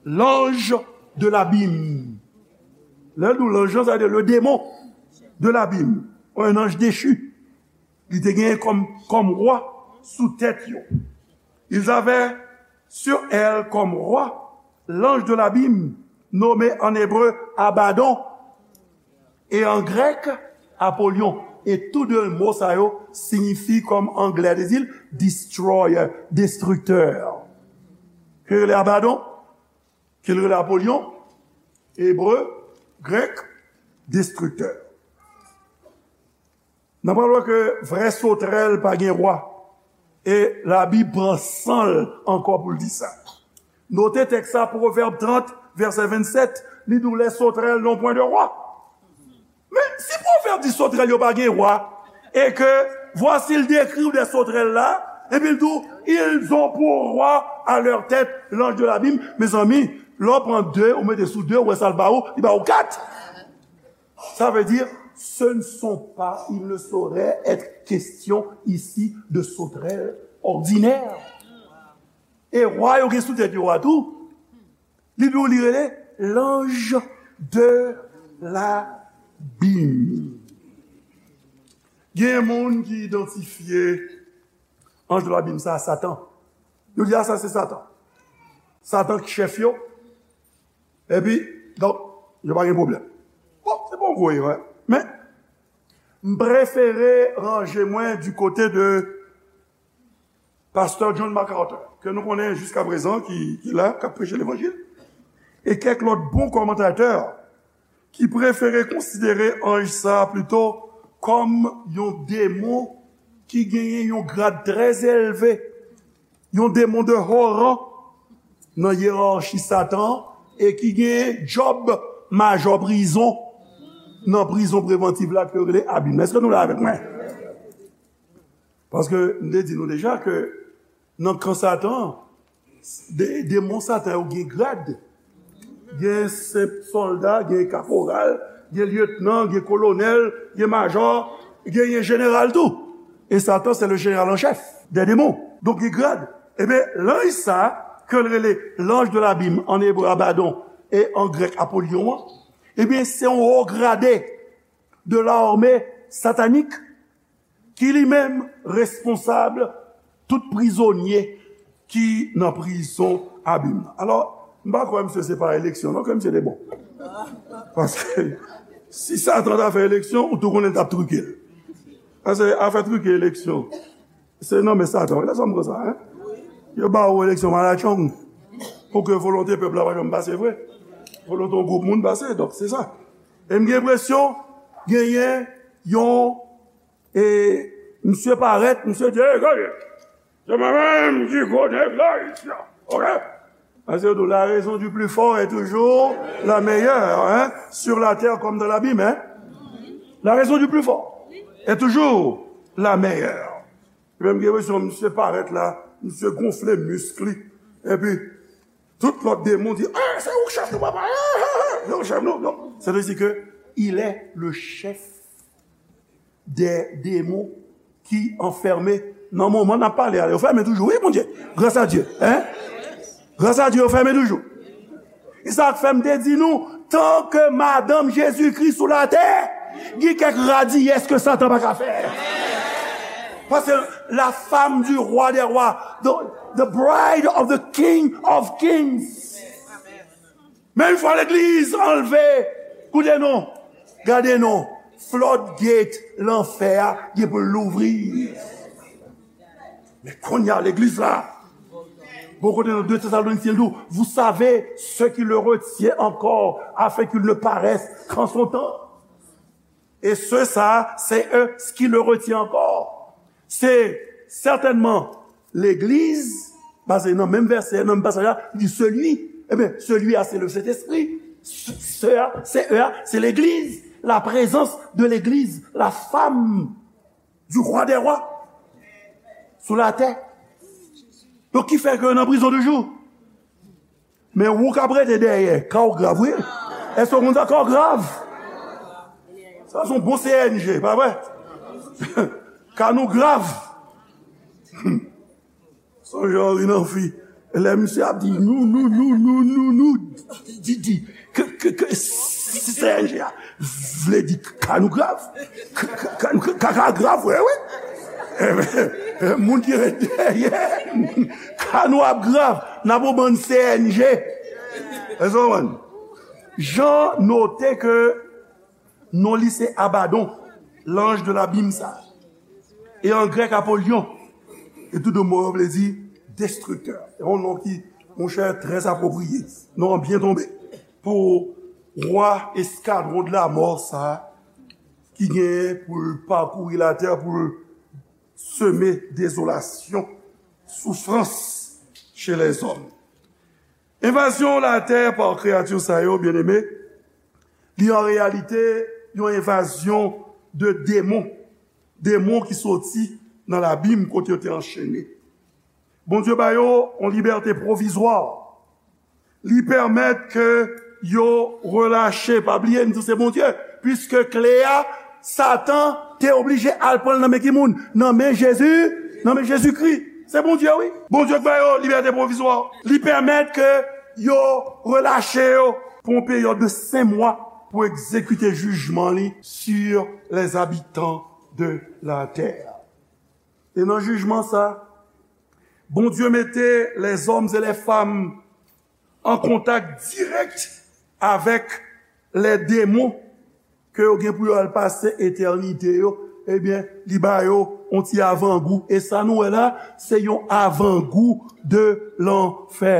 l'ange de l'abîme. Lè l di w lanj lan, sa vle di le démon de l'abîme, un ange déchu. Li te genyen kòm, kòm wa sou tèt yo. Ils avaient sur elles comme roi l'ange de l'abîme, nommé en hébreu Abaddon, et en grec Apollyon. E tou de mo sa yo siyifi kòm anglè te di l, destroyer, destructeur. Ki rele Abaddon, ki rele Apollyon, ebre, grèk, destructeur. N ap wè ke vrè sotrèl pa gen wa. E Labib pran san l ankò pou l di sa. Note tèks sa, Pwovèb trant, vèsè vennsèt, li di w les sauterelles n'ont point de roi. Men si Pwovèb di sotrèl yo pa gen wa, e ke, voici, l dekri w de sotrèl la, epi l di w, ils ont pour roi à leur tête l'ange de l'abîme. Mezanmi, lè w pran de, ou mete sou de, ou wè sa l ba ou, li ba ou kat. Ça veut dire, ce ne sont pas, il ne saurait être question ici de sauterelles ordinaires. E wa yo gen sou tèt yo a tou. Li di w li rele L'ange de l'abîme. Gen moun ki idantifye anj de labim sa a Satan. Yo di, "A, sa se Satan." Satan ki chèf yo. Epi, donk, yo pa gen pwoblèm. Bon, se pa yon gwo erè. Men, m prefere ranje mwen du côté de Pastè John MacArthur, ke nou konnen jiskaprezan, ki, ki la, k ap preche levanjil, e kèk lòt bon kòmantatè ki prefere konsidere anj sa a plito kòm yon demon ki genyen yon grad trè elve, yon demon de haut rang nan yerachi Satan, e ki gen djòb majò prizon nan prizon prevantiv la ke yo rele abim. Èske nou la avèk mwen? Paske m te di nou deja ke nan kan Satan, de, demon Satan yo gen grad. Gen senp sòlda, gen kaporal, gen lyetnan, gen kolonèl, gen majò, gen, gen jeneral tou. E Satan, c'est le général en chef des démons. Donk, gen grad. Ebyen, lanj sa, ke l rele l'ange de l'abîme, an ebre Abadon, e an grèk Apollyon an, ebyen, se yon wo grade de l'armée satanique ki li menm responsab tout prizonye ki nan prizon abim nan. Alò, m pa kwè misye se pa eleksyon non ke misye te bon. Paske si Satan ta fè eleksyon, ou tou konnen l t ap trike l. Paske afè trike eleksyon, se nan men Satan wi, lè sa m pran sa, en. Yo ba ou eleksyon malatchong pou ke volonte pèp la pa janm pase vre. Volonte yon gwoup moun pase, donk se sa. E m gen enpresyon genyen yon E misye parèt, misye di, "Ey, gade, se mwen menm ki gwo nèg la isi a, oke?" Paske yo di, "La raison du plus fort est toujours la meilleure, hein, sur la terre comme dans l'abîme, hein. La raison du plus fort est toujours la meilleure." Epi m gen enpresyon misye parèt la, misye gonfle misk li, epi tout lòt demon di, "Ah, se ou k chèf nou, papa, ah, ah, ah, se ou k chèf nou." Non, c'est-à-dire que il est le chef des démons ki anfèmen nan moman n ap pale a. Yo fèmen toujou, wi, Bondye. Gras a Dye, en? Gras a Dye, yo fèmen toujou. E sa k fè m te di nou, tan ke madanm Jezikri sou latè, gen kèk radiyès ke Satan pa ka fè. Paske la femme du roi des rois, the, the bride of the king of kings. Men yon fwa legliz anlve, koute non, gade non, floodgate lanfè a gen pou l louvri. Men kounye a legliz la, bon kote nan de Tesalonisyen tou, vous savez ce qui le retient encore afin qu'il ne paraisse qu'en son temps. E se sa, se eux ce qui le retient encore. Se sètènman legliz, paske nan menm vèsè, nan menm pasaj la, li di celui, ebyen, celui a, se le Sentespri, se a, se e a, se legliz, la prezans de legliz, la femme du roi des rois sou latè. Donk, ki fè ke yo nan prizon toujou. Men ou k ap rete dèyè, ka w grav, wi. Èske w konn sa, ka w grav? Sa se yon bon C N G, pa vre? Ka nou grav. Sonje Henri Namphy, lè misye ap di nou, nou, nou, nou, nou, nou, di, di, ke, ke, ke, C N G a vle di ka nou grav. Ka, ka, ka, ka grav, wi, wi. Moun ki ret dèyè, ka nou ap grav, n ap yon bann C N G. Èske w konprann? Jan note ke non li se Abadon, l'ange de l'abîme sa. E an grèk, Apollyon. E tou de mo yo vle di destriktè. Se yon non ki, monchè, trè apwopriye. Non an byen tonbe. Pou wa eskadwon de la mò sa, ki genyen pou l pakouri latè, pou l seme dezolasyon, soufrans chez les hommes. Envazyon latè pa kreyati sa yo, byeneme, li an reyalite yon envazyon de demon. Demon ki soti nan labim kote yo te anchene. Bondye ba yo yon libète pwovizwa. Li pèmèt ke yo relache. Pa bliye, m di w se Bondye. Piske kle a, Satan te oblije al pran l nan men ki moun? Nan men Jezi, nan men Jezikri. Se Bondye, wi. Bondye k ba yo libète pwovizwa. Li pèmèt ke yo relache yo. pou yon peryòd de senk mwa pou egzekite jijman li sur les habitants de la terre. E nan jijman sa, Bondye mete les hommes et les femmes an kontak dirèk avèk les démons ke yo gen pou yo al pase etènite yo, ebyen, li ba yo yon ti avangou. E sa nou wè la, se yon avangou de lanfè.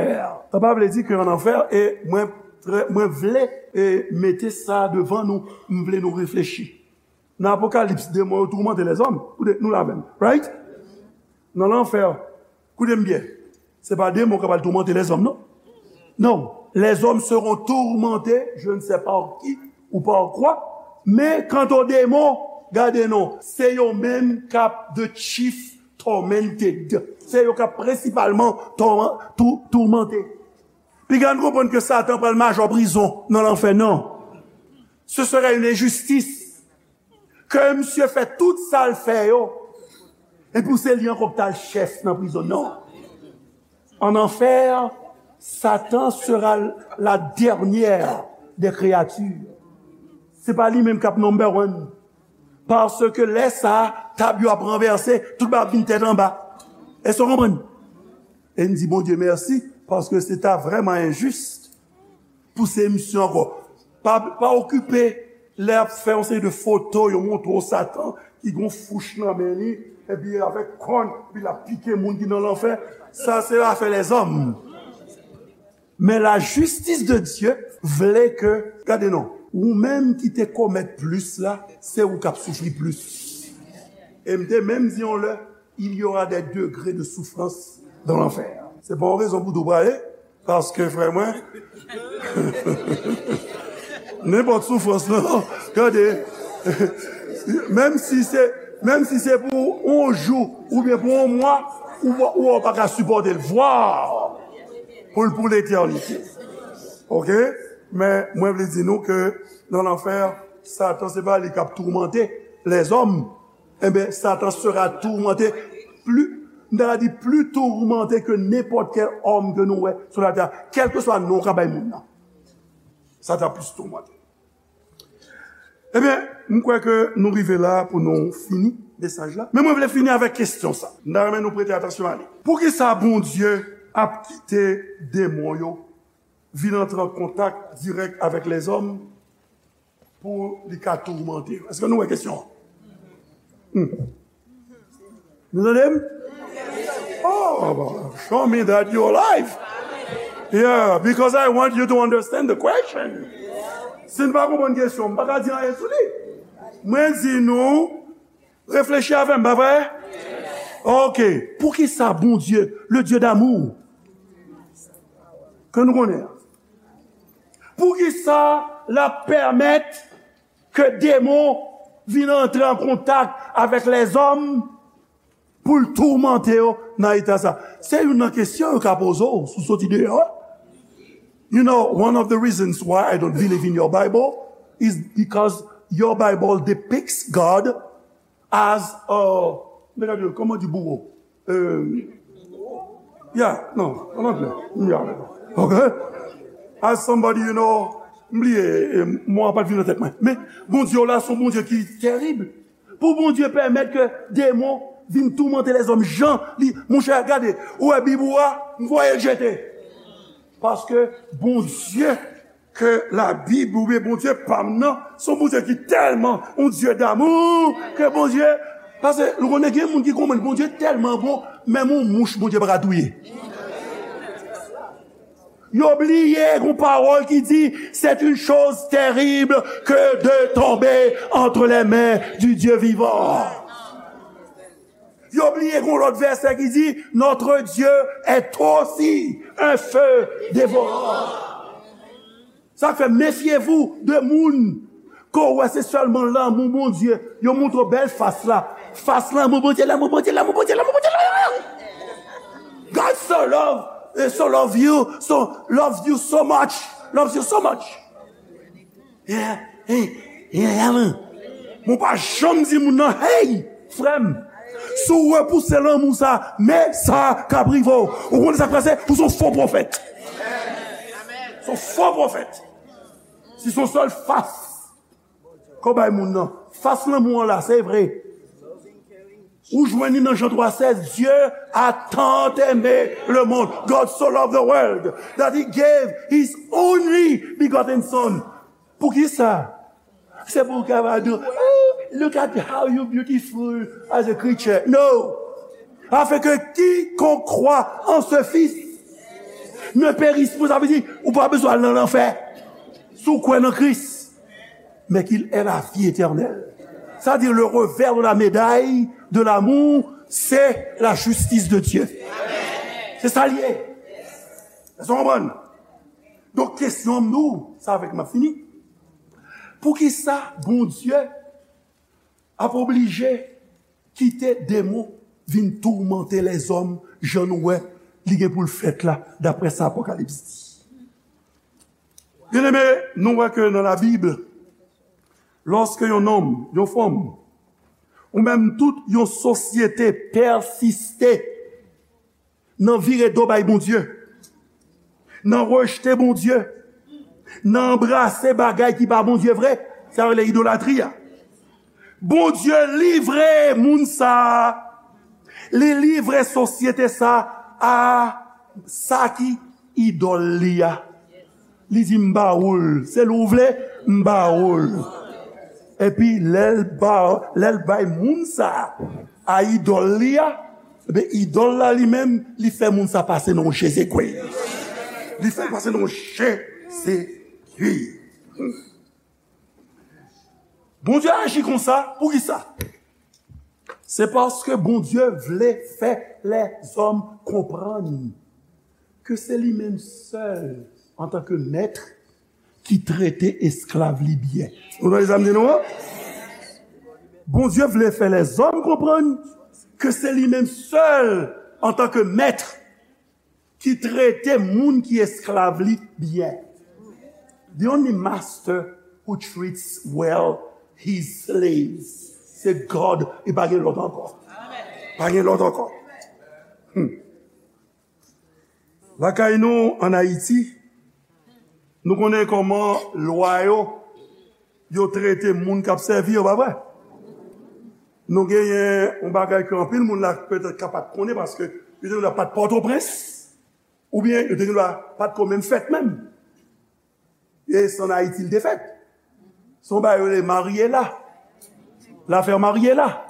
Sa pa vle di ke an anfè, e mwen, trè, mwen vle, e, mete sa devan nou, m vle nou reflechi. Nan Apokalips, demon yo toumante lèzòm. Koute, nou la menm, right? Nan lanfè, koute m byen. Se pa demon k ap al toumante lèzòm, non. Non. Les hommes seront tourmentés, je ne sais par qui ou par quoi, men quant aux démons, gade non, se yo menm k ap the chief tormented. Se yo k ap prensipalman tourman-, tou-, toumante. Piga n konprann ke Satan pral majò prizon nan lanfè, non. Ce serait une injustice. Ke misye fè tout sa l fè yo, epi se li ankò k t al chèf nan prizon. Non. En enfer, Satan sera la dernière des créatures. Se pa li menm k ap number one. Paske lè sa a, tab yo ap ranvèse, tout bagay ap vin tèt anba. Èske w konprann? E n di Bondye mèsi, paske se ta vrèman enjis pou se misye ankò. Pa, pa okipe lè y ap fè yon seri de foto, yo montre w Satan ki gon fouch nan men li, epi avèk kòn, epi l ap pike moun ki nan lanfè. Sa se afè lèzòm. Men la justice de Dieu vle ke, gade non, ou menm ki te komèt plis la, se ou k ap soufri plis. E m te menm di yon lè, il y aura des degrés de souffrance dans l'enfer. Se pa yon rezon pou tou prale, paske frè mwen, nenpòt soufrans lan, gade, menm si se, menm si se pou yon jou, oubyen pou yon mwa, ou, ou pa ka sipòte l. Vwa pou l pou letènite. Oke? Men mwen vle di nou ke nan lanfè, Satan se pa li k ap toumante lèzòm. Enben, Satan sera tourmenté, pli, m ta ka di, pli tourmenté ke nenpòt kèl òm ke nou wè sou latè a, kèlkeswa non w ka bay moun nan. Satan plis tourmenté. Ebyen, m kwè ke nou rive la pou nou fini mesaj la. Men mwen vle fini avèk kesyon sa. M ta renmen nou prete atansyon a li. Poukisa Bondye ap kite demon yo vin antre an kontak dirèk avèk lèzòm pou li ka toumante yo? Èske nou wè kesyon an? Hmm. Nou tande m? Oh, show me that you're alive. Yeah, because I want you to understand the question. Si n pa konprann kesyon, m pa ka di anyen sou li. Mwen di nou, reflechi avè m, pa vre? Ok. Poukisa Bondye, le Dieu d'amour, ke nou konnen an, poukisa l ap pèmèt ke demon vin antre an kontak avèk lèzòm pou l toumante yo nan eta sa? Se youn nan kesyon yo ka poze w si w soti deyò a. You know, one of the reasons why I don't believe in your Bible is because your Bible depicts God as a, kòman di bouro? Euh, yeah, non, an anglè. Yeah. Ok? As somebody, you know, m bliye, eh, mo a pa t vin nan tèt mwen. Men, Bondye w la, se yon Bondye ki tèrib. Pou Bondye pèmèt ke demon vin toumante lèzòm jan li, monchè, gade, ou wè Bib ou a, m voye l jete. Paske Bondye ke Labib oubyen Bondye pa m nan, se yon Bondye ki tèlman yon Dye damou ke Bondye, paske nou konnen gen moun ki konprann Bondye tèlman bon, menm yon mouch Bondye pa ka touye. Yo bliye yon pawòl ki di, c'est une chose terrible que de tomber entre les mains du Dieu vivant. Yo bliye gon lòt vèsè ki di, notre Dieu est aussi un feu dévorant. Sa k fè, méfiez-vous de moun ke w wè se sèlman lanmou Bondye, yo montre w bèl fas la. Fas lanmou Bondye, lanmou Bondye, lanmou Bondye, lanmou Bondye, lanmou Bondye. God so love, eh, so love you, so loves you so much, loves you so much. Yeah, hey, yeah, yeah, man. Mwen pa janm di moun nan, hey, frè m, si w repouse lanmou sa, men sa k ap rive w. Ou konnen sa k pase? Ou se yon fo pwofèt. Se yon fo pwofèt. Si se yon sèl fas ke w bay moun nan, fas lanmou an la, se vre. Ou jwenn li nan Jan twa sèz, Dieu a tant aimé le monde, God so loved the world, that he gave his only begotten son. Poukisa? Se pou w kapab di, "Oh, look at how you beautiful as a creature." No. Afin que quiconque croit en ce Fils ne périsse point. Sa vle di, ou pa bezwen al nan lanfè. Si w kwè nan Kris, mais qu'il ait la vie éternelle. C'est-à-dire le revers de la médaille de l'amour, c'est la justice de Dieu. Se sa l ye. Èske w konprann? Donk, kesyon m nou, sa avèk m ap fini. Poukisa Bondye ap oblije kite demon vin toumante lèzòm jan nou wè li gen pou l fèt la, daprè sa Apokalips di? Byeneme, nou wè ke nan Labib, lòske yon nonm, yon fanm, ou menm tout yon sosyete pèsiste nan vire do bay Bondye, nan rejte Bondye, nan anbrase bagay ki pa Bondye vre, sa yo rele idolatri a. Bondye livre moun sa a, li livre sosyete sa a, a sa ki idòl li a. Li di, "M ba ou l, se li w vle, m ba ou l." Epi lè l ba, lè l bay moun sa a idòl li a, ebyen, idòl la li menm, li fè moun sa pase nan yon Jezekri. Li fè l pase nan yon Jezekri. Bondye aji konsa, poukisa? Se paske Bondye vle fè lèzòm konprann ke se li menm sèl, antanke mèt, ki trete esklav li byen. Ou tande sa m di nou an? Bondye vle fè lèzòm konprann ke se li menm sèl, antanke mèt, ki trete moun ki esklav li byen. The only master who treats well his slaves, se God, e pa gen lòt ankò. Pa gen lòt ankò. Hmm. Lakay nou, ann Ayiti, nou konnen kòman lwa yo, yo trete moun k ap sèvi yo, pa vre? Nou genyen yon bagay ke anpil moun la petèt ka pa t konnen, paske yo te dwe pa t Pòtoprens, oubyen yo te dwe pa t ko menm fèt menm. E se ann Ayiti l te fèt. Se yon bagay yo rele Mariela. L'affaire Mariela.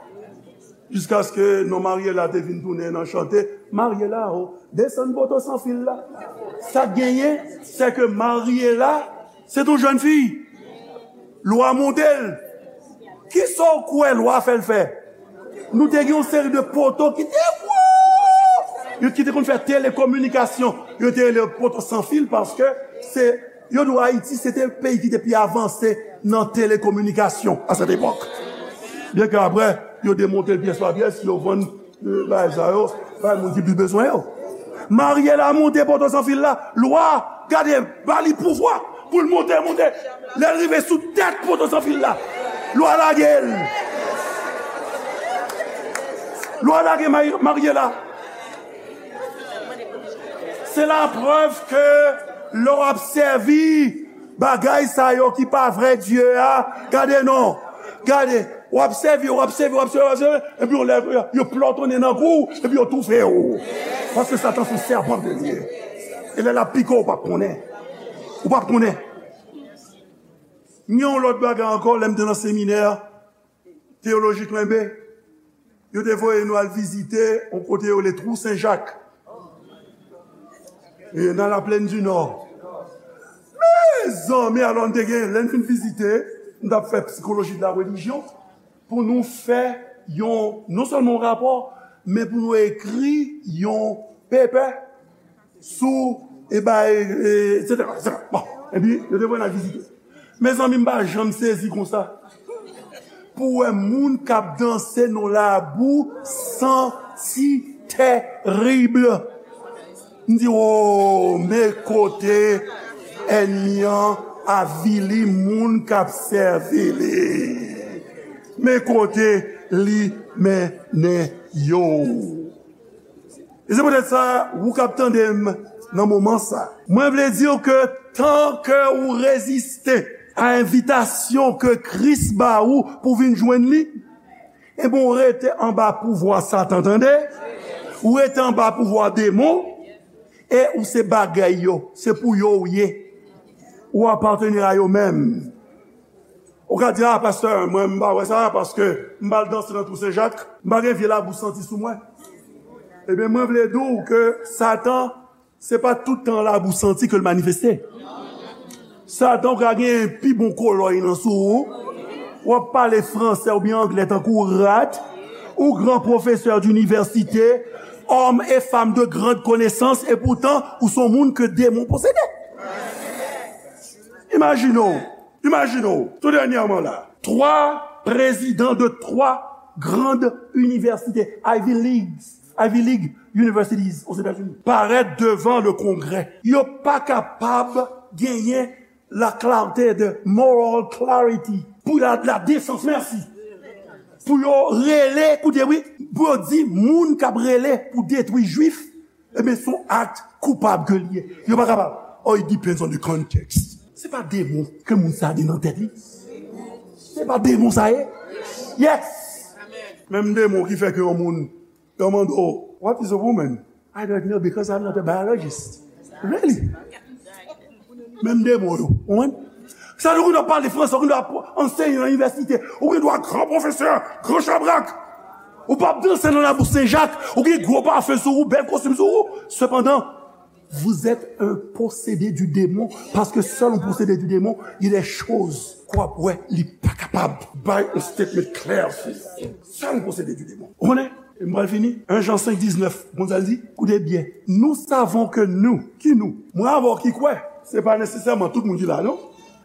Jiskaske non Mariela te vin tounen nan chante, "Mariela o, desann poto san fil la." Sa k genyen, se ke Mariela, se t yon jèn fi. Lwa monte l. Kisa w kwè lwa fè l fè? Nou te gen yon seri de poto ki te wo, yo ki te konn fè telekominikasyon. Yo te rele poto san fil paske se, yo di w Ayiti se te peyi ki te pi avanse nan telekominikasyon a sèt epòk. Byen ke apre, yo demonte l pyès pa pyès, yo vann, euh, bagay sa yo bay moun ki pi bezwen yo. Mariela monte poto san fil la, lwa, gade, ba li pouvwa pou l monte, monte. Lè l rive sou tèt poto san fil la, lwa lage l. Lwa lage Mari-, Mariela. Se laprèv ke lè w ap sèvi bagay sa yo ki pa vrè Dye a, gade non, gade, w ap sèvi, w ap sèvi, w ap sèvi, w ap sèvi, epi yon lè, yo plòtonnen nan kou w, epi yo toufe w. Paske Satan se yon sèpan ke li ye. E lè l ap pike w, ou p ap konnen. Ou p ap konnen. Gen yon lòt bagay ankò, lè m te nan seminè teyolojik Lenbe, yo te voye nou al vizite yon kote yo rele Twou Sen Jak. E nan Laplèn di Nò. Mezanmi, alò n te gen, lè n fin vizite, n t ap fè sikoloji de la relijyon, pou nou fè yon, non sèlman yon rapò, men pou nou ekri yon pepè sou, e bay, e, etsetera, etsetera. Bon, epi, yo te voye n al vizite. Mezanmi, m pa janm sezi konsa. Pou wè moun k ap danse nan labou santi terib. M di, "O, men kote ènmi an avili moun k ap sèvi li. Men kote li mennen yo." E se poutèt sa, ou k ap tande m nan moman sa, mwen vle di w ke tan ke ou reziste, a envitasyon ke Kris ba ou pou vin jwenn li, ebyen, ou rete anba pouvwa Satan, tande? Ou rete anba pouvwa demon, e ou se bagay yo, se pou yo ou ye. Ou apateni a yo menm. Ou ka di, "Ah, pastè, mwen, m pa wè sa, paske m pa al danse nan Twou Sen Jak, m pa gen vye labou santi sou mwen." Ebyen, mwen vle di w ke Satan, se pa tout tan labou santi ke l manifeste. Satan ka gen pi bon kolòy nan sou ou. W ap pale fransè oubyen anglè tankou rat. Ou gran pwofesè dinivèsite, homme et femme de grande connaissance, e poutan, ou se yon moun ke demon posede. Imajine w, imajine w, tou dènyèman la, twa prezidan de twa grand inivèsite, Ivy League, Ivy League Universities Ozetazini, parèt devan le Kongrè. Yo pa kapab genyen la clarté de moral clarity, pou la, la desans, mèsi. Pou yo rele, koute wi, pou yo di moun k ap rele pou detwi Jwif, ebyen, se yon ak koupab ke l ye. Yo pa kapab. Oh, it depends on the context. Se pa demon ke moun sa gen nan tèt li. Se pa demon sa ye. Yes. Menm demon ki fè ke yon moun, yo mande w, "What is a woman?" "I don't know because I'm not a biologist." Really? Menm demon yo. Ou konprann? Sa nou konn ap pale fransè, ou konn ap anseye nan inivèsite, ou gen dwa gran pwofesè, gran chabrak. Ou p ap danse nan Labou Sen Jak, ou gen gwo pafen sou ou, bèl kostim sou ou. Sepandan, vous êtes un possédé du démon, paske sèl yon posede di demon, gen de choz k w ap wè li pa kapab bay yon statement klè sou. Sèl yon posede di demon. Ou konnen? E m pral fini. En Jan senk diznèf, konn sa l di? Koute byen. Nous savons que nous, ki nou? Mwen avè w ki kwè. Se pa nesesèman tout moun ki la, non.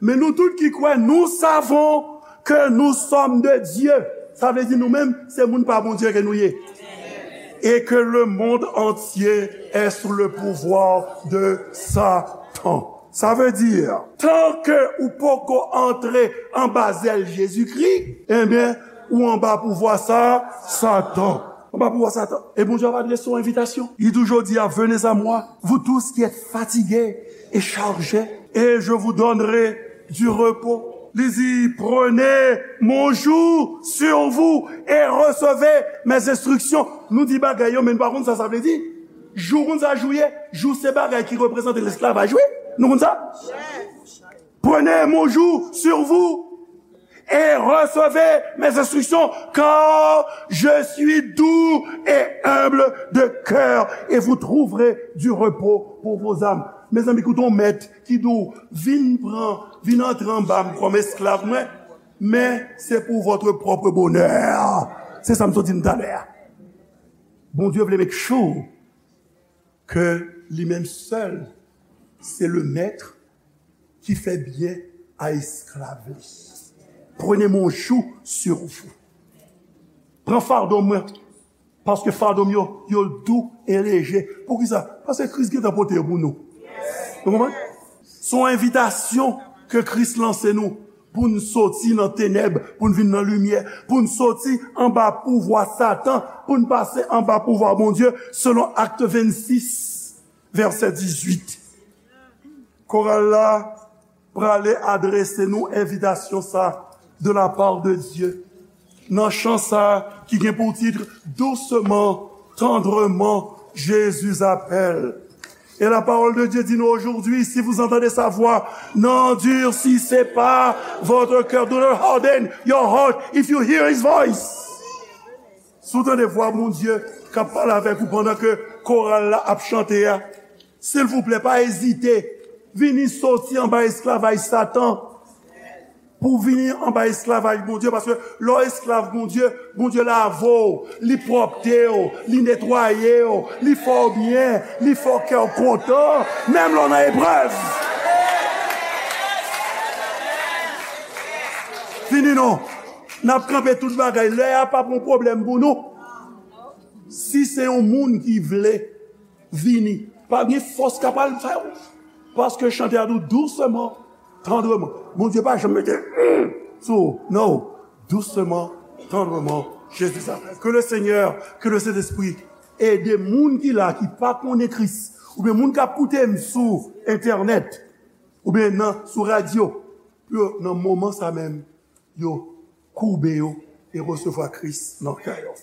Men nou tout ki kwè, nous savons que nous sommes de Dieu. Sa vle di nou menm, se moun pa Bondye ke nou ye. Et que le monde entier est sous le pouvoir de Satan. Sa vle di, tan ke ou poko antre anba zèl Jezikri, ebyen, ou anba pouvwa sa, Satan. Anba pouvwa Satan. E Bondye ap adrese yon envitasyon. Li di w jodi a, "Venez à moi, vous tous qui êtes fatigués et chargés, et je vous donnerai du repos." Li di, "Prenez mon joug sur vous et recevez mes instructions." Nou di bagay yo, men nou pa konn sa sa vle di. Jou, konn sa jou ye? Jou se bagay ki reprezante lesklavaj, wi. Nou konn sa? "Prenez mon joug sur vous et recevez mes instructions, car je suis doux et humble de cœur, et vous trouverez du repos pour vos âmes." Mezanmi, koute yon mèt ki di w, "Vin pran, vin antre anba m kòm esklav mwen, men se pou votre propre bonheur." Se sa m sot di n talè a. Bondye vle make sure ke li menm sèl se le mèt ki fè byen a esklav li. Prenez mon joug sur vous. Pran fado mwen, paske fado m yo, yo dou e leje. Poukisa? Paske Kris gentan pote yo pou nou. Nou konprann? Se yon envitasyon ke Kris lanse nou pou n soti nan tenèb, pou n vin nan limyè, pou n soti anba pouvwa Satan, pou n pase anba pouvwa Bondye, selon Acte vingt-six, verset dix-huit. Koral la prale adrese nou envitasyon sa de la part de Dieu. Nan chan sa ki gen pou tit Doucement, tendrement, Jésus appelle. Et la parole de Dieu dit nous aujourd'hui, si vous entendez sa voix, n'endurcissez pas votre cœur. Do not harden your heart if you hear his voice. Si w tande vwa Bondye k ap pale avèk ou pandan ke koral la ap chante a, silvouplè, pa ezite. Vini soti anba esklavaj Satan pou vini anba esklavaj Bondye, paske lè w esklav Bondye, Bondye lave w, li pwòpte w, li netwaye w, li fè w byen, li fè w kè w kontan, menm lè w nan eprèv. Vini non. N ap kanpe tout bagay. Lè a p ap yon pwoblèm pou nou. Si se yon moun ki vle vini, pa gen fòs k ap al fè w. Paske chante a di w, doucement, tendrement. Bondye pa janm mete, mm, sou ou. Non. Doucement, tendrement, Jésus appelle. Que le Seigneur, que le Saint-Esprit ede moun ki la, ki pa konnen Kris, oubyen moun k ap koute m sou entènèt, oubyen nan, sou radyo, pou yo, nan moman sa menm, yo koube yo e resevwa Kris nan kè yo.